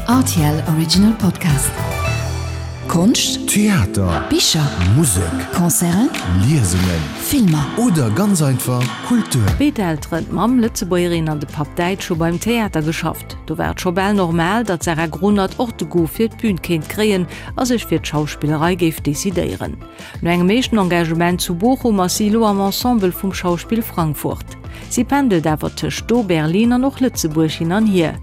Rtl Original Podcast. Konscht, Theater, Bicher, Musek, Concerten, Liesungen, Filmer. Oder ganz einfach Kultur. Béid Elteren, d'Mamm Lëtzebuergerin an de Papp Däitsch, hu beim Theater geschafft. Do war et scho bal normal, datt d'Sarah Grunert och de Goût fir d'Bün kéint kréien a sech fir d'Schauspillerei géif decidéieren. No engem éischten Engagement zu Bochum ass si elo am Ensemble vum Schauspiel Frankfurt. Si pendelt awer tëscht do, Berlin an och Lëtzebuerg hin an hier.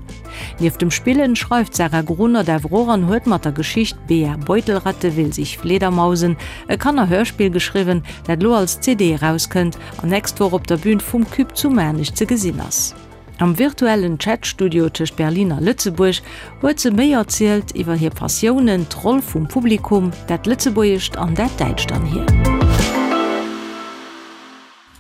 Nieft dem Spillen schreift d'Sarah Grunert awer och an huet mat der Geschicht Bea Beutelratte will sich Fledermausen e Kannerhörspill geschriwwen, dat elo als CD erauskënnt an nächst Woch op der Bün vum Cube zu Maarnech ze gesinn ass. Am virtuellen Chat-Studio tëscht Berlin a Lëtzebuerg huet se méi erzielt iwwer hir Passiounen, d'Roll vum Publikum, dat Lëtzebuergescht an dat Däitscht an hir.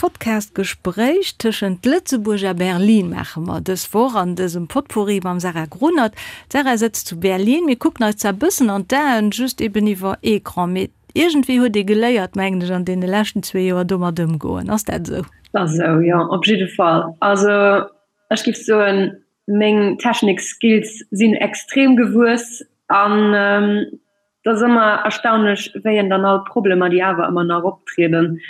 Podcast-Gespréich tëschent Lëtzebuerg a Berlin maache mer dës Woch an dësem Potpourri mam Sarah Grunert. D'Sarah sëtzt zu Berlin. Mir kucken eis zwar bëssen an d'Aen, just eben iwwer Ecran, mee iergendwéi huet ee geléiert, mengen ech, an deene leschten zwee Joer domat ëmgoen. Ass dat esou? Dat ass esou, jo, op jidde Fall. Also ech géif soen, meng Technik-Skills sinn extrem gewuess an et ass ëmmer erstaunlech, wéi een dann all d'Problemer, déi awer ëmmer nach optrieden,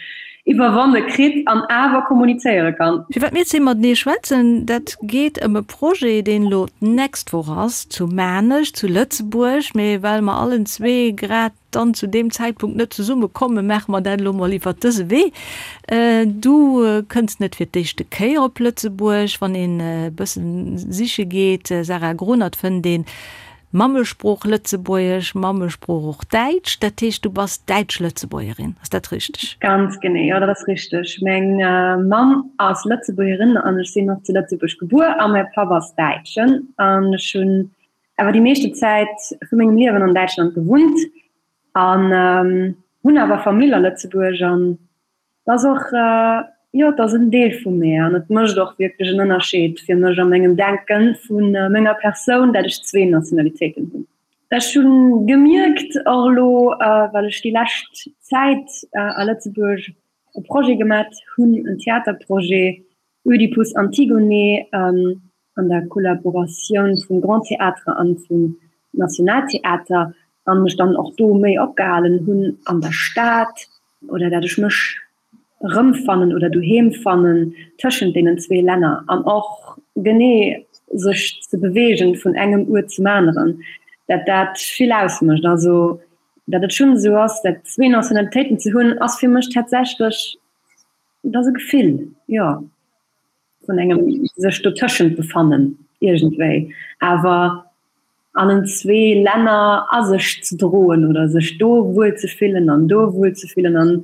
iwwerwonne kritt an awer kommunizéiere kann. Firwat mir zwee matenee schwätzen, dat geet ëm e Projet, deen elo d'nächst Woch ass, zu Maarnech, zu Lëtzebuerg. Mee well mer allen zwee grad dann zu deem Zäitpunkt net zesumme kommen, maache mer dat elo mol iwwert dëse Wee. Du kënns net fir d'éischte Kéier op Lëtzebuerg. Wann een e bëssen siche geet, Sarah Grunert, fënnt een Mammesprooch Lëtzebuergesch, Mammesprooch och Däitsch. Dat heescht, du bass Däitsch-Lëtzebuergerin, ass dat richteg? Ganz genee, jo, dat ass richteg. Meng Mamm ass Lëtzebuergerin an ech sinn och zu Lëtzebuerg gebuer a mäi Papp ass Däitschen an ech hunn awer déi meeschte Zäit vu mengem Liewen an Däitschland gewunnt an hunn awer Famill a Lëtzebuerg an et ass och, jo, et ass en Deel vu mir an et mécht och wierklech en Ënnerscheed fir mech a mengem Denke vu menger Persoun, dat ech zwee Nationalitéiten hunn. Ech hu gemierkt och elo, well ech déi lescht Zäit a Lëtzebuerg e Projet gemat hunn, en Theaterprojet, Oedipus Antigone an der Kollaboratioun vum Grand Théâtre an vum Nationaltheater an mech dann och do méi opgehalen hunn an der Stad oder dat ech mech erëmfannen oder doheem fannen tëschent deenen zwee Länner an och genee sech ze beweegen vun engem Uert zum aneren, dat dat vill ausmécht. Also dat et schonn esou ass, dat zwee Nationalitéiten ze hunn, ass fir mech tatsächlech Et ass e Gefill, jo, vun engem sech dotëschent befannen iergendwéi, awer an en zwee Länner a sech ze droen oder sech do wuel ze fillen an do wuel ze fillen an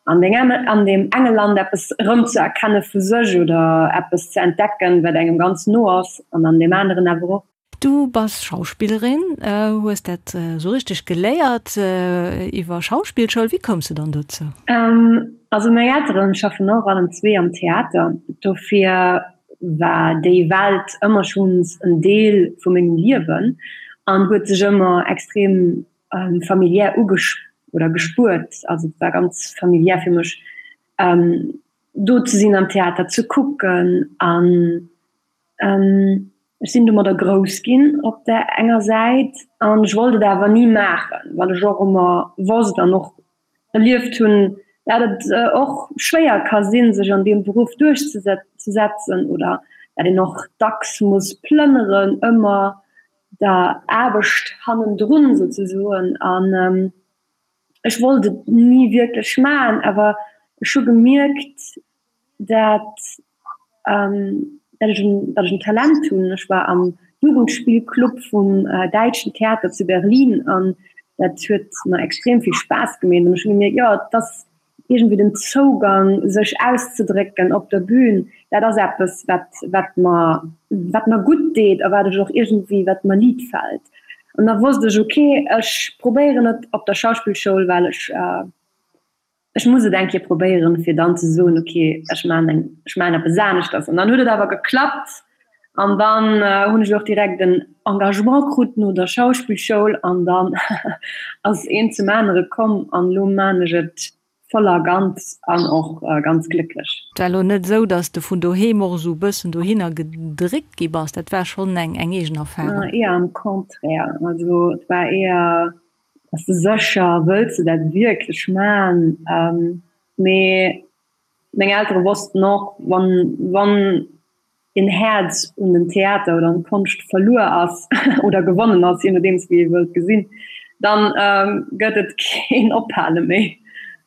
an deng an deem enge Land eppes erëmzeerkenne vu sech oder eppes ze entdecken, wat engem ganz no ass an an deem aneren awer och. Du bass Schauspillerin, hues dat esou richteg geléiert iwwer Schauspillschoul. Wéi koums de dann dozou? Also meng Elteren schaffen och allen zwee am Theater, dofir war déi Welt ëmmer schonns en Deel vu mengem Liewen an huet sech ëmmer extrem familiär ugesch oder gespuert. Also et war ganz familiär fir mech do ze sinn, am Theater ze kucken an Ech sinn domadder grouss ginn op där enger Säit an ech wollt et awer ni maachen, well ech och ëmmer wosst an och erlieft hunn, dat et och schwéier ka sinn, sech an deem Beruff duerchzesetzen oder dat een och dacks muss plënneren, ëmmer der Aarbecht hannendrun souzesoen. An ech wollt et ni wierklech maachen, awer ech hu gemierkt, dat dat ech en dat ech en Talent hunn. Ech war am Jugendspillclub vum Däitschen Theater zu Berlin an dat huet mer extrem vill Spaass gemeet an ech hu gemierkt, jo et ass iergendwéi den Zougang sech auszedrécken op der Bühn, dat ass eppes wat wat mer wat mer gutt deet a wat ech och iergendwéi wat mer liit fält. An da wosst ech, ok ech probéieren et op der Schauspillschoul, well ech Ech muss et eng Kéier probéieren, fir dann ze soen, ok, ech maachen eng, ech maachen eppes aneschters. An dann huet et awer geklappt an dann hunn ech och direkt en Engagement krut no der Schauspillschoul an dann ass eent zum anere komm an elo maachen ech et. Voll a ganz an och ganz glécklech. Et war elo net esou, dass de vun doheem och esou e bëssen dohinner gedréckt gi bass, dat war schonn eng eng eegen Erfarung? Eher am Contraire, also et war eher, Bass de sécher, wëlls de dat wierklech man? Mee meng Eltere wossten och, wann wann een Häerz un den Theater oder an d'Konscht verluer ass oder gewonnen ass, je nodeems wéi ee wëllt gesinn, dann gëtt et keen Ophale méi.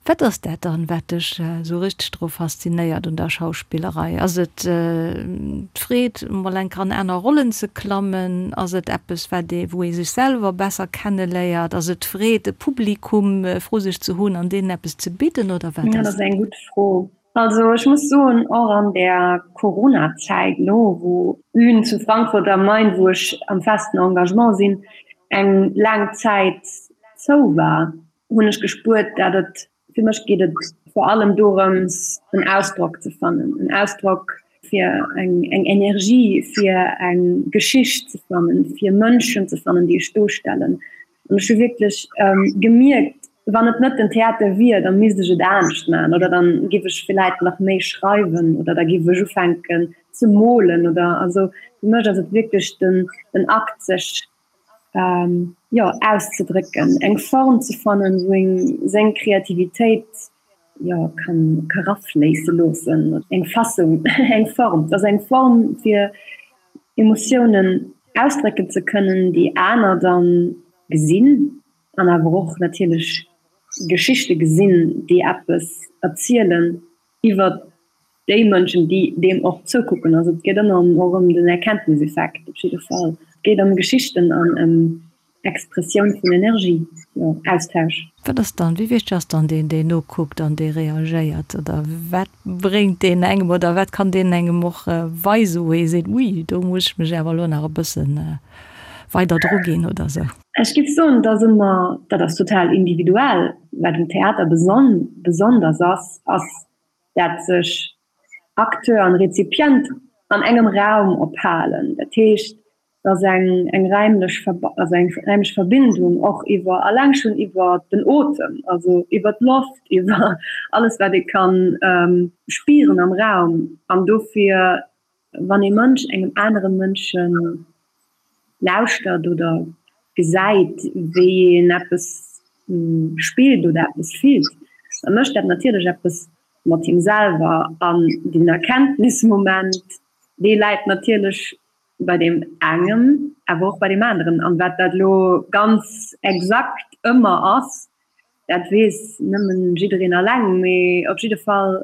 Wat ass dat dann, wat dech esou richteg dru faszinéiert un der Schauspillerei? Ass et d'Freed, mol eng Kéier an aner Rollen ze klammen? Ass et eppes, wat ee, wou ee sech selwer besser kenneléiert? Ass et d'Freed, e Publikum vru sech ze hunn an deenen eppes ze bidden, oder wat ass et? Dat ass eng gutt Fro. Also ech muss soen, och an der Corona-Zäit elo, wou d'Bün zu Frankfurt am Main, wou ech am festen Engagement sinn, eng laang Zäit zou war, hunn ech gespuert, dat et, fir mech geet et vor allem dorëms, en Ausdrock ze fannen, en Ausdrock fir eng eng Energie, fir eng Geschicht ze fannen, fir Mënschen ze fannen, déi ech duerstellen. An ech hu wierklech gemierkt, wann et net den Theater wier, da misst ech et anescht maachen oder dann giff ech villäit nach méi schreiwen oder da giff ech ufänken ze molen oder also fir mech ass et wierklech den den Akt sech jo auszedrécken, eng Form ze fannen, wou een seng Kreativitéit jo kann ka rafléisse loossen, eng Fassung, eng Form, et ass eng Form fir Emotiounen ausdrécken ze kënnen, déi aner dann gesinn an awer och natierlech Geschichte gesinn, déi eppes erzielen iwwer déi Mënschen, déi deem och zoukucken. Also et geet ëmmer och ëm den Erkenntniseffekt op jidde Fall. Et geet ëm Geschichten an ëm Expressioun vun Energie, jo, Austausch. Wat ass dann, wéi wichteg ass dann deen, deen nokuckt an dee reagéiert? Oder wat bréngt deen engem oder wat kann deen engem och weisen, wou ee seet, ui, do muss ech mech awer elo nach e bësse weider druginn oder esou? Ech géif soen, et ass ëmmer, dat ass total individuell. Wat um Theater besonders ass, ass dat sech Acteur an Rezipient an engem Raum ophalen. Dat heescht, dass eng eng räimlech also eng räimlech Verbindung och iwwer alleng schonn iwwer den Otem, also iwwer d'Loft, iwwer alles wat ee kann spieren am Raum. An dofir wann ee Mënsch engem anere Mënsche lauschtert oder gesäit wéi een eppes spillt oder eppes fillt, da mécht dat natierlech eppes mat him selwer. An den Erkenntnismoment, dee läit natierlech bei deem engem, awer och bei deem aneren. An wat dat elo ganz exakt ëmmer ass, dat weess nëmmen jiddereen alleng. Mee op jidde Fall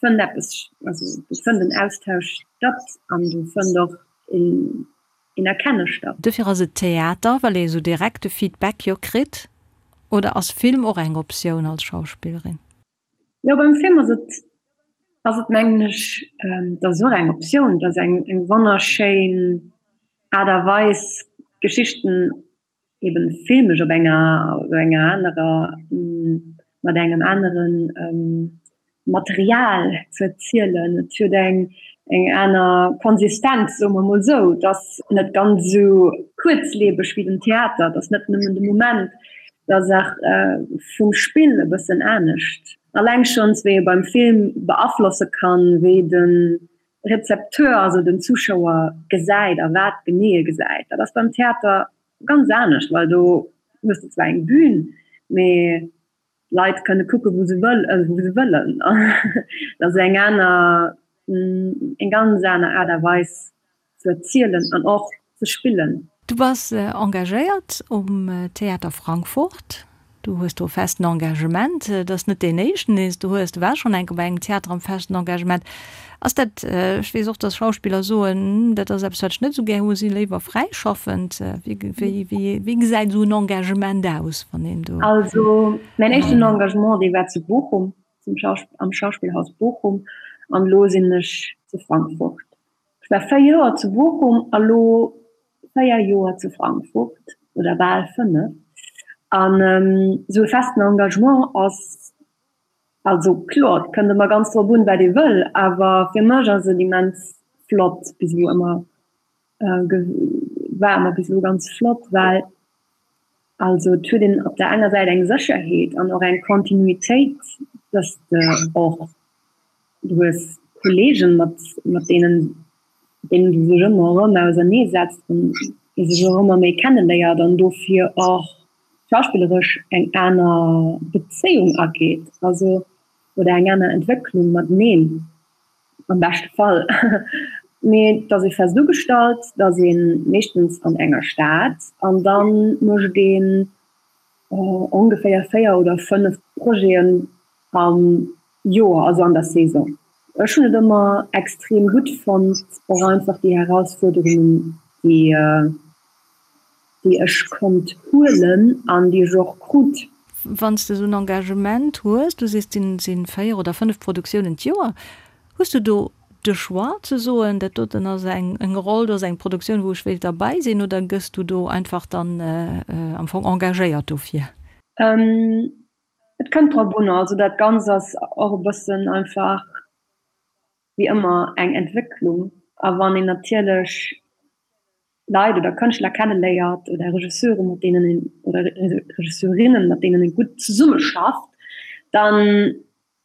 fënnt eppes, also do fënnt en Austausch statt an do fënnt och een Erkenne statt. Dofir ass et Theater, well ee sou direkt de Feedback jo kritt. Oder ass Film och eng Optioun als Schauspillerin? Jo, beim Film ass et, ass et mengen ech, dat ass och eng Optioun, dat ass eng, eng wonnerschéin Aart a Weis Geschichten eben filmesch op enger, op enger anerer, mat engem anere Material ze erzielen. Et huet eng, eng aner Konsistenz, soe mer mol esou. Et ass net ganz esou kuerzlebeg wéi den Theater, et ass net nëmmen de Moment. Et ass och vum Spill e bëssen anescht. Alleng schonns wéi ee beim Film beaflosse kann, wéi de Rezepteur, also den Zuschauer gesäit a wat genee e gesäit. Dat ass beim Theater ganz anescht, well do hues de zwar eng Bühn, mee d'Leit kënne kucke wou se wëllen. Dat ass eng aner, eng ganz aner Aart a Weis ze erzielen an och ze spillen. Du bass engagéiert um Theater Frankfurt. Du hues do e festen Engagement. Et ass net deen éischten, deen s du hues. Du waars schonn eng Kéier bei engem Theater am festen Engagement. Ass dat, ech weess och, datt Schauspiller soen, dat ass eppes, wat ech net esou gär hu, si léiwer fräischaffend. Wéi, wéi, wéi gesäit esou en Engagement aus, wann een do. Also mäin éischten Engagement, dee war zu Bochum, zum am Schauspielhaus Bochum an elo sinn ech zu Frankfurt. Ech war 4 Joer zu Bochum a lo 4 Joer zu Frankfurt, oder bal 5. An esou e festen Engagement ass, also kloer, et kënnt ëmmer ganz drop un, wat ee wëll, awer fir mech ass et immens flott bis elo ëmmer, war ëmmer bis elo ganz flott, well also et huet een op der enger Säit eng Sécherheet an och eng Kontinuitéit. Dass de och, du hues Kolleegen, mat, mat deenen, deenen du sech ëmmer erëm ausernee setzt an ee sech och ëmmer méi kenneléiert an dofir och schauspilleresch eng aner Bezéiung ageet, also oder eng aner Entwécklung mateneen am beschte Fall. Mee et ass ee fest ugestallt, et ass ee meeschtens an enger Stad an da mécht een ongeféier 4 oder 5 Projeten am Joer, also an der Saison. Ech hunn et ëmmer extrem gutt fonnt, och einfach déi Herausfuerderungen, déi déi ech konnt huelen an déi ech och krut. Wann s de esou en Engagement hues, du sees, et sinn 4 oder 5 Produktiounen d'Joer, Hues du do de Choix ze soen, dat doten ass eng Roll, do ass eng Produktioun, wou ech wéilt derbäi sinn, oder gëss du do einfach dann am Fong engagéiert dofir? Et kënnt drop un. Also dat Ganzt ass och e bëssen einfach wéi ëmmer eng Entwécklung. A wann een natierlech Leit oder Kënschtler kenneléiert oder Regisseure mat deenen een oder Regisseurinnen mat deenen ee gutt zesummeschafft, dann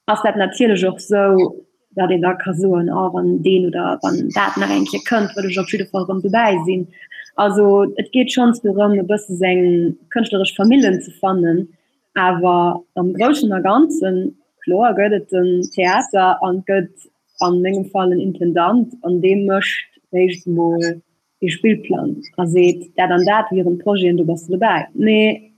ass dat natierlech och sou, datt een da ka soen, oh wann deen oder wann dat nach eng Kéier kënnt, wëll ech op jidde Fall erëm dobäi sinn. Also et geet schonns dorëm, e bësse seng kënschtleresch Famillen ze fannen, awer am Groussen a Ganzen, kloer gëtt et den Theater an et gëtt an mengem Fall en Intendant an dee mécht réischt emol ee Spillplang a seet, dat an dat wieren d'Projeten, do bass de dobäi. Mee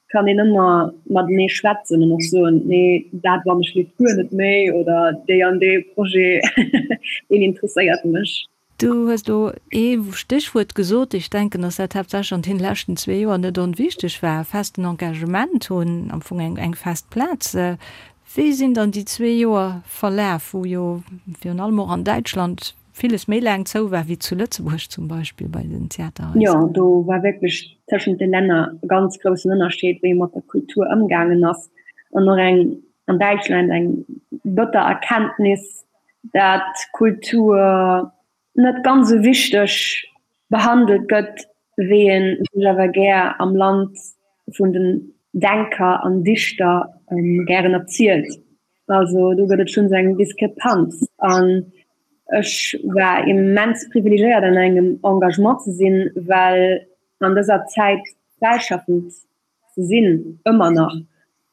kann een ëmmer matenee schwätzen an och soen, nee dat wann ech leeft guer net méi oder déi an dee Projet deen interesséiert mech. Du hues elo ee Stéchwuert gesot, ech denken, datt dat haaptsächlech an deene leschten zwee Joer net onwichteg war, festen Engagement hunn, am Fong eng fest Plaz. Wéi sinn dann déi zwee Joer verlaf, wou jo virun allem och an Däitschland villes méi laang zou war wéi zu Lëtzebuerg zum Beispill bei den Theaterhaiser? Jo, do war wierklech tëschent de Länner e ganz groussen Ënnerscheed, wéi ee mat der Kultur ëmgaangen ass. An och eng an Däitschland eng bëtter Erkenntnis, dat Kultur net ganz esou wichteg behandelt gëtt, wéi ee sech awer gär am Land vun den Denker an Dichter gären erzielt. Also do gëtt et schonns eng Diskrepanz. An ech war immens privilegéiert an engem Engagement ze sinn, well an dëser Zäit fräischaffend ze sinn, ëmmer nach,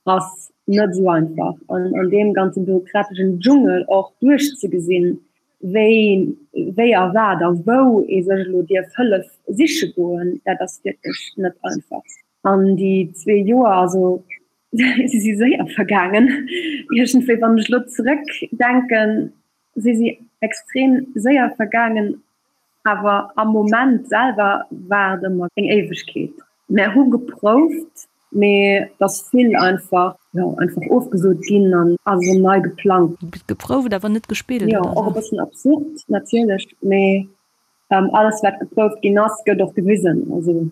ass net esou einfach. An an deem ganze bürokrateschen Dschungel och duerchzegesinn, wéi, wéi a wat a wou ee sech elo dierf Hëllef siche goen, dat ass wierklech net einfach. An déi zwee Joer, also si si séier vergaangen iergendwéi, wann ech elo zeréckdenken, si si extrem séier vergaangen, awer am Moment selwer war et ëmmer eng Éiwegkeet. Mär hu geprouft, mee et ass vill einfach, jo, einfach ofgesot ginn an ass erëm nei geplangt. Geprouft, awer net gespillt, Jo, och e bëssen absurd natierlech, mee alles wat geprouft ginn ass, gëtt och gewisen. Also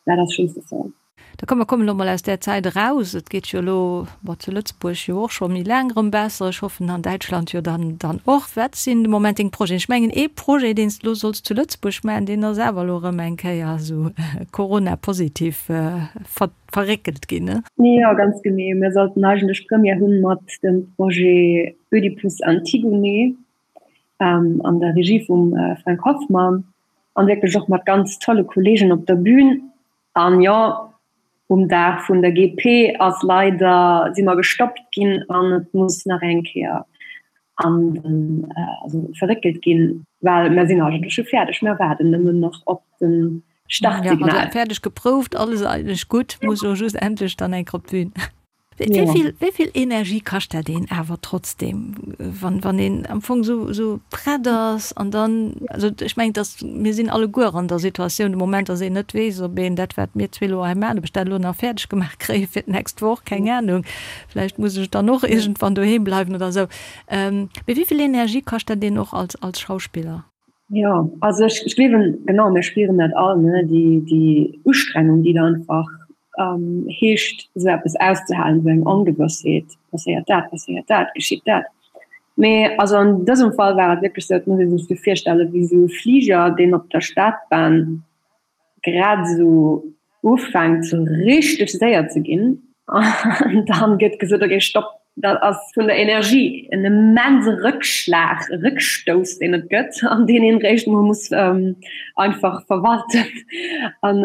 dat ass schonns de Fall. Da komm, mer kommen elo mol aus där Zäit eraus. Et geet jo elo, bon, zu Lëtzebuerg jo och scho méi laang erëm besser, ech hoffen an Däitschland jo dann dann och. Wat sinn de Moment deng Projeten? Ech mengen ee Projet, deen s de elo solls zu Lëtzebuerg maachen, deen ass awer elo erëm eng Kéier esou Corona-positiv verréckelt ginn, ne? Jo, ganz genee. Mir sollten eigentlech Première hu mat dem Projet Oedipus Antigone an der Regie vum Frank Hoffmann an wierklech och mat ganz tolle Kollegen op der Bühn. An jo, um Dag vun der GP ass leider, si mer gestoppt ginn an et muss nach eng Kéier an den, also verréckelt ginn, well mer sinn eigentlech scho fäerdeg, mer waarden nëmmen nach op de Startsignal. Jo, also fäerdeg geprouft, alles eigentlech gutt, muss elo just endlech dann eng Kéier op d'Bün. Wéi vill Energie kascht dat een awer trotzdem, wann wann een am Fong esou esou prett ass an dann, also ech mengen, dass mir sinn alleguer an der Situatioun de Moment, dass een net weess, ob een dat wat mir zwee elo hei maachen, ob ech dat elo nach fäerdeg gemaach kréie fir d'nächst Woch, keng Anung, vläicht muss ech dann och iergendwann doheem bleiwen oder esou. Mee wéi vill Energie kascht dat een och als als Schauspiller? Jo, also ech ech gleewen, genau, mir spieren dat all, ne, déi déi Ustrengung, déi da einfach heescht, esou eppes auszehalen, esou eng Ongewëssheet, passéiert dat, passéiert dat, geschitt dat. Mee also an dësem Fall war et wierklech esou, et muss ee sech esou virstelle wéi esou e Fliger, deen op der Stadbahn grad esou ufänkt, esou richteg séier ze ginn an dann gëtt gesot, okay, stopp. Dat ass vun der Energie en immense Rëckschlag, e Rëckstouss, deen et gëtt an deen een réischt mol muss einfach verwalten. An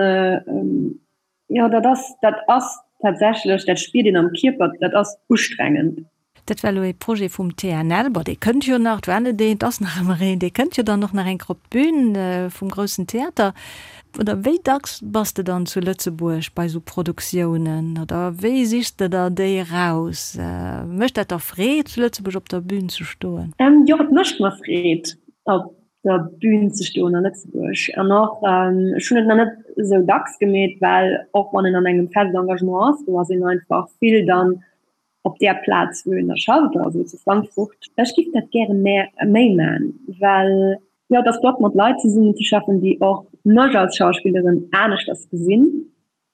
jo, dat ass, dat ass tatsächlech, dat spiert een am Kierper, dat ass ustrengend. Dat war elo ee Projet vum TNL. Bon, dee kënnt jo nach, et war net een, et ass nach ëmmer een, dee kënnt jo dann och nach eng Kéier op d'Bün vum groussen Theater. Oder wéi dacks bass de dann zu Lëtzebuerg bei esou Produktiounen oder wéi sichs de der déi eraus? Mécht dat der Freed, zu Lëtzebuerg op der Bün ze stoen? Jo, et mécht mer Freed, op der Bün ze stoen a Lëtzebuerg. An och, ech hunn et nach net esou dacks gemeet, well och wann een an engem fest Engagement ass, do ass een einfach vill dann op där Plaz wou een da schafft, also zu Frankfurt. Ech giff dat gäre méi man, well jo et ass flott mat Leit zesummen ze schaffen, déi och mech als Schauspillerin aneschters gesinn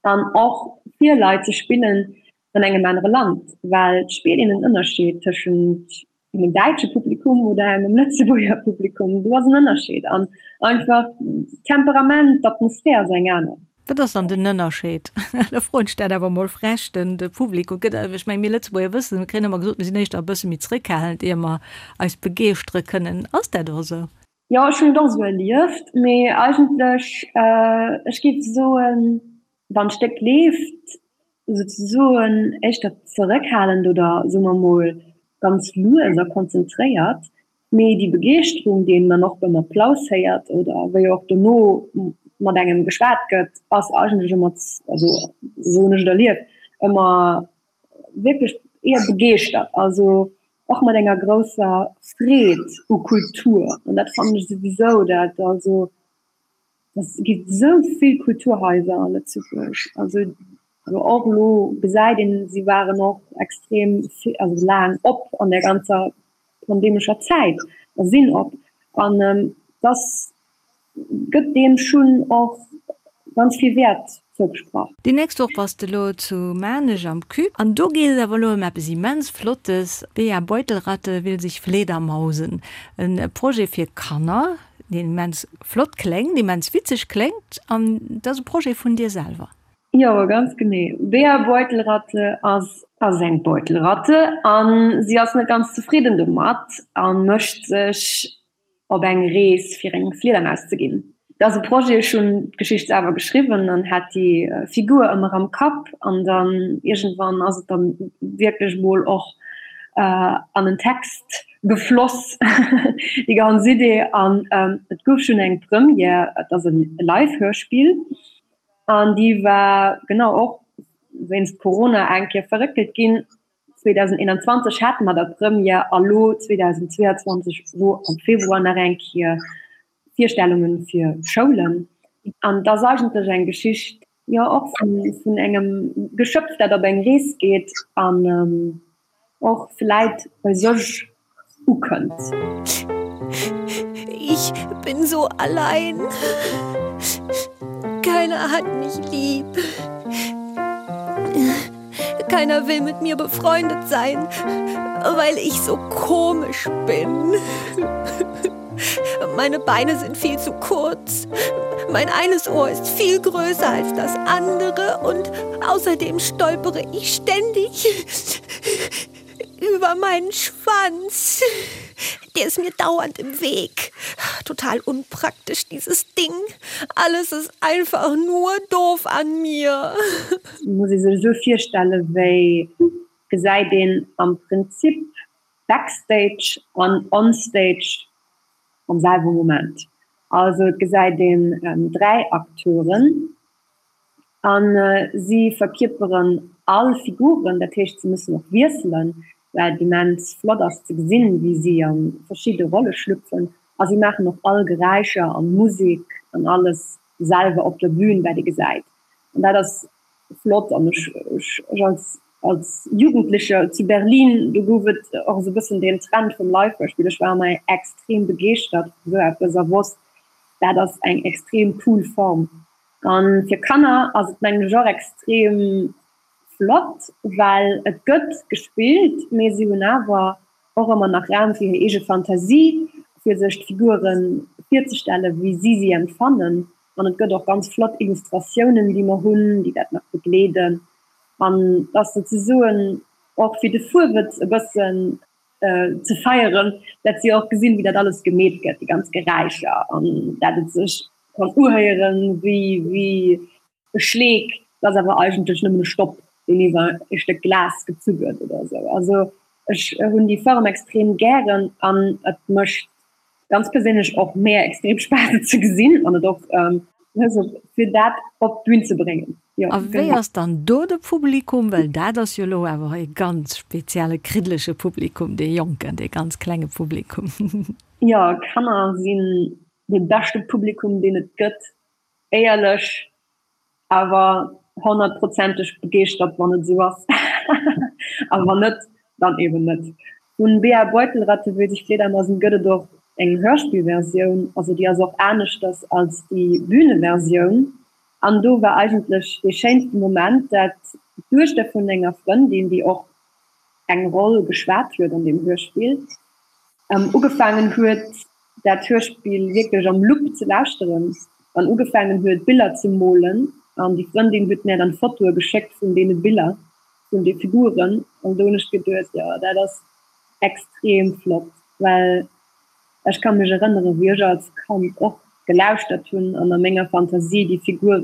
an och fir Leit ze spillen an engem anere Land, well et spiert een en Ënnerscheed tëschent engem däitsche Publikum oder engem Lëtzebuerger Publikum, do ass en Ënnerscheed an einfach d'Temperament, d'Atmosphär ass eng aner. Wat ass dann den Ënnerscheed? Da froen ech dat awer mol frech, den de Publikum gëtt, ech meng mir Lëtzebuerger wëssen, mir kréien ëmmer gesot, mir sinn éischter e bësse méi zréckhalend ier mer eis begeeschtere kënnen. Ass dat och esou? Jo, ech hunn et och esou erlieft, mee eigentlech, ech géif soen, wann d'Stéck leeft, souzesoen éischter zeréckhalend oder soe mer mol ganz lues a konzentréiert, mee déi Begeeschterung, déi een dann och beim Applaus héiert oder wéi och dono mat engem geschwat gëtt, ass eigentlech ëmmer, also esou hunn ech et erlieft, ëmmer wierklech eher begeeschtert, also och mat enger grousser Freed u Kultur. An dat fannen ech souwisou, dat also Et gi sou vill Kulturhaiser a Lëtzebuerg. Also och elo gesäit een, si waren och extrem also laang op an der ganzer pandemescher Zäit a sinn op. An dass gëtt deem schonn och ganz vill Wäert zougesprach. Déi nächst Woch bass de lo zu Maarnech am Cube an do geet et awer elo ëm eppes immens Flottes, Bea Beutelratte will sich fledermausen, e Projet fir Kanner, deen immens flott kléngt, immens witzeg kléngt an dat ass e Projet vun dir selwer. Jo, ganz genee. Bea Beutelratte ass ass eng Beutelratte an si ass net ganz zefridden domat a mécht sech op eng Rees fir eng Fliedermaus ze ginn. Dat ass e Projet, ech hunn d'Geschicht selwer geschriwwen an hat déi Figur ëmmer am Kapp an dann iergendwann ass et dann wierklech mol och an en Text gefloss, déi ganz Idee. An et gouf schonn eng Première, et ass e Live-Hörspill an déi war genau och wéinst Corona eng Kéier verréckelt ginn. 2021 hate mer da Première a lo 2022 lo am Februar nach eng Kéier Virstellunge fir Schoulen. An et ass eigentlech eng Geschicht, jo och vun engem Geschöpf, dat op eng Rees geet an och vläit bei sech ukënnt. Ich bin so allein. Keiner hat mich lieb. Keiner will mit mir befreundet sein, weil ich so komisch bin. Meine Beine sind viel zu kurz. Mein eines Ohr ist viel größer als das andere und außerdem stolpere ich ständig über meinen Schwanz. Der ist mir dauernd im Weg. Total unpraktisch dieses Ding. Alles ist einfach nur doof an mir. Muss ee sech esou virstelle wéi gesäit een am Prinzip Backstage an Onstage am selwe Moment. Also et gesäit een 3 Acteuren a si verkierperen all Figuren, dat heescht se mussen och wiesselen, wat immens flott ass ze gesinn, wéi si a verschidde Rolle schlüpfen a si maachen och all Geräischer an Musek an alles selwer op der Bühn, wat ee gesäit an dat ass flott an ech ech als als Jugendlecher zu Berlin, do gouf et och esou e bëssen deen Trend vum Live-Hörspiel, ech war ëmmer extrem begeeschtert vu sou eppes a wosst, dat ass eng extrem cool Form. A fir Kanner ass et mengen ech och extrem flott, well et gëtt gespillt, mee si hunn awer och ëmmer nach Raum fir hir eege Fantasie, fir sech d'Figure virzestellen, wéi si si empfannen. An et gëtt och ganz flott Illustratiounen, déi mer hunn, déi dat nach begleeden. An et ass souzesoen. Och fir de Fuerwëtz e bëssen ze feieren, dat si och gesinn, wéi dat alles gemeet gëtt, déi ganz Geräischer an dat et sech kann uhéieren wéi wéi e Schleek, dat ass awer eigentlech nëmmen e Stopp, deen iwwer e Stéck Glas gezu gëtt oder esou. Also ech hunn déi Form extrem gären an et mécht ganz perséinlech och mär extrem Spaass et ze gesinn an et och fir dat op d'Bün ze bréngen. Jo, A wéi ass dann do de Publikum? Well dat ass jo elo awer e ganz spezielle kriddelege Publikum, dee jonken, dee ganz klenge Publikum. Jo, Kanner sinn dee beschte Publikum, deen et gëtt, éierlech. Awer honnertprozenteg begeeschtert wann et esou ass, a wann net, dann eben net. Vun Bea Beutelratte wéi sich Fledermasen gëtt et och eng Hörspielversioun, also déi ass och aneschters als déi Bühneversioun. An do war eigentlech dee schéinste Moment, dat d'Duechter vun enger Frëndin, déi och eng Roll geschwat huet an deem Hörspiel, ugefaangen huet, dat Hörspill wierklech am Loop ze lauschteren an ugefaangen huet Biller ze molen an déi Frëndin huet mär dann Fotoe geschéckt vun deene Biller, vun de Figuren an do hunn ech geduet, jo dat ass extrem flott, well ech ka mech erënnere wéi ech als Kand och gelauschtert hunn an a menger Fantasie déi Figure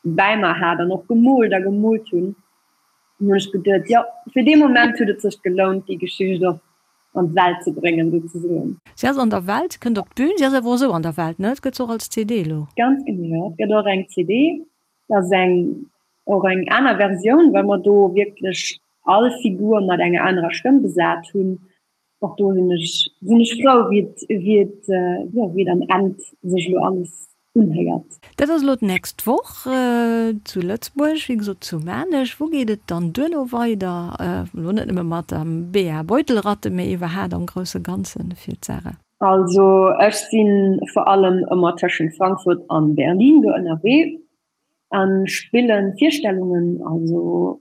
bäi mer hat an och gemoolt a gemoolt hunn. An hunn ech geduet, jo fir dee Moment huet et sech gelount déi Geschicht och an d'Welt ze bréngen souzesoen. Si ass an der Welt, si kënnt op d'Bün, si ass awer och esou an der Welt, ne? Et gëtt se och als CD elo. Ganz genee, jo. Et gëtt och eng CD. Dat ass eng och eng aner Versioun, well mer do wierklech all Figur mat enger anerer Stëmm besat hunn. Och do sinn ech sinn ech frou, wéi et wéi et jo wéi et am Enn sech elo alles unhéiert. Dat ass elo d'nächst Woch zu Lëtzebuerg, wéi gesot zu Maarnech. Wou geet et dann duerno weider? Elo net nëmme mat der Bea Beutelratte, mee iwwerhaat am grousse Ganze fir d'Sarah? Also ech si vor allem ëmmer tëschent Frankfurt an Berlin do ënnerwee a spille Virstellungen, also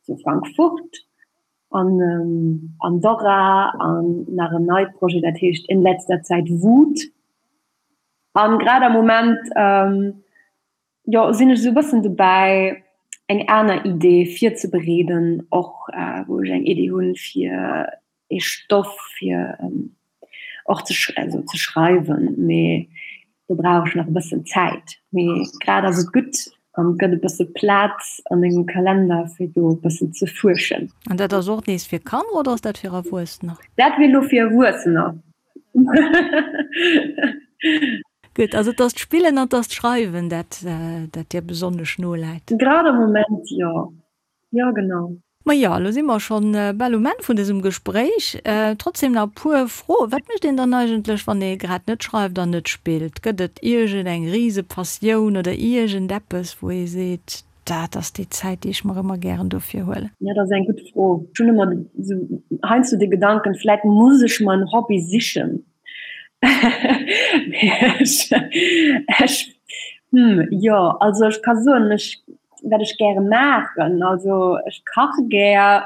zu Frankfurt an Andorra an nach en neit Projet, dat heescht In letzter Zeit Wut. An grad am Moment jo sinn ech esou e bëssen dobäi eng aner Idee virzebereeden, och wou ech eng Idee hunn fir ee Stoff fir och ze also ze schreiwen, mee do brauch ech nach e bëssen Zäit. Mee grad ass et gutt an et gëtt e bësse Plaz a mengem Kalender fir do e bëssen ze fuerschen. An dat ass och nees fir Kanner oder ass dat fir Erwuessener? Dat wier elo fir Erwuessener. Gutt, also et ass d'Spillen an et ass d'Schreiwen, dat dat dir besonnesch noläit. Grad am Moment jo, jo genau. Ma jo, elo si mer schonn bal um Enn vun dësem Gespréich. Trotzdem nach e puer Froen. Wat mécht een dann eigentlech, wann ee grad net schreift an net spillt? Gëtt et iergend eng Risepassioun oder iergend eppes, wou ee seet, Dat ass déi Zäit, déi ech mer ëmmer gären dofir huelen. Ja, dat ass eng gutt Fro. Ech hunn ëmmer esou heiansdo de Gedanken, vläit muss ech mer en Hobby sichen. Mee ech, ech, hm, jo, also ech ka soen, ech, wat ech gäre maachen, also ech kache gär.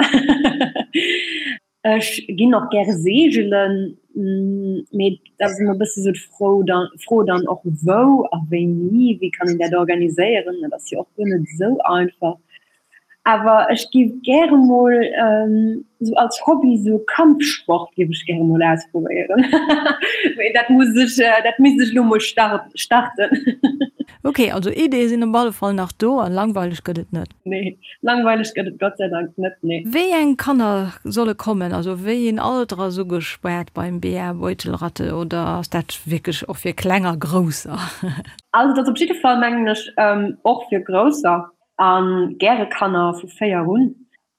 Ech ginn och gäre seegelen, mee dat ass ëmmer e bësse sou d'Fro dann, Fro dann och wou a wéini, wéi kann een dat organiséieren, dat ass jo och guer net esou einfach. Awer ech géif gäre mol sou als Hobby sou Kampfsport géif ech gäre mol ausprobéieren, mee dat muss ech, dat misst ech elo mol starten. Ok, also Ideeë sinn op alle Fall nach do an langweileg gëtt et net. Nee, langweileg gëtt et Gott sei Dank net, nee. Wéi eng Kanner solle kommen? Also wéi een Alter ass ugespaart beim BA Beutelratte oder ass dat wierklech och fir Kleng a Grousser? Also et ass op jidde Fall mengen ech och fir Grousser a gäre Kanner vu 4 un.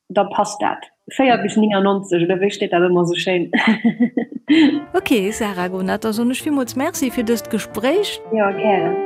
Da passt dat. 4 bis 99, oder wéi steet dat ëmmer esou schéin? Ok, Sarah Gonat, da soen ech villmools Merci fir dëst Gespréich. Jo, gären.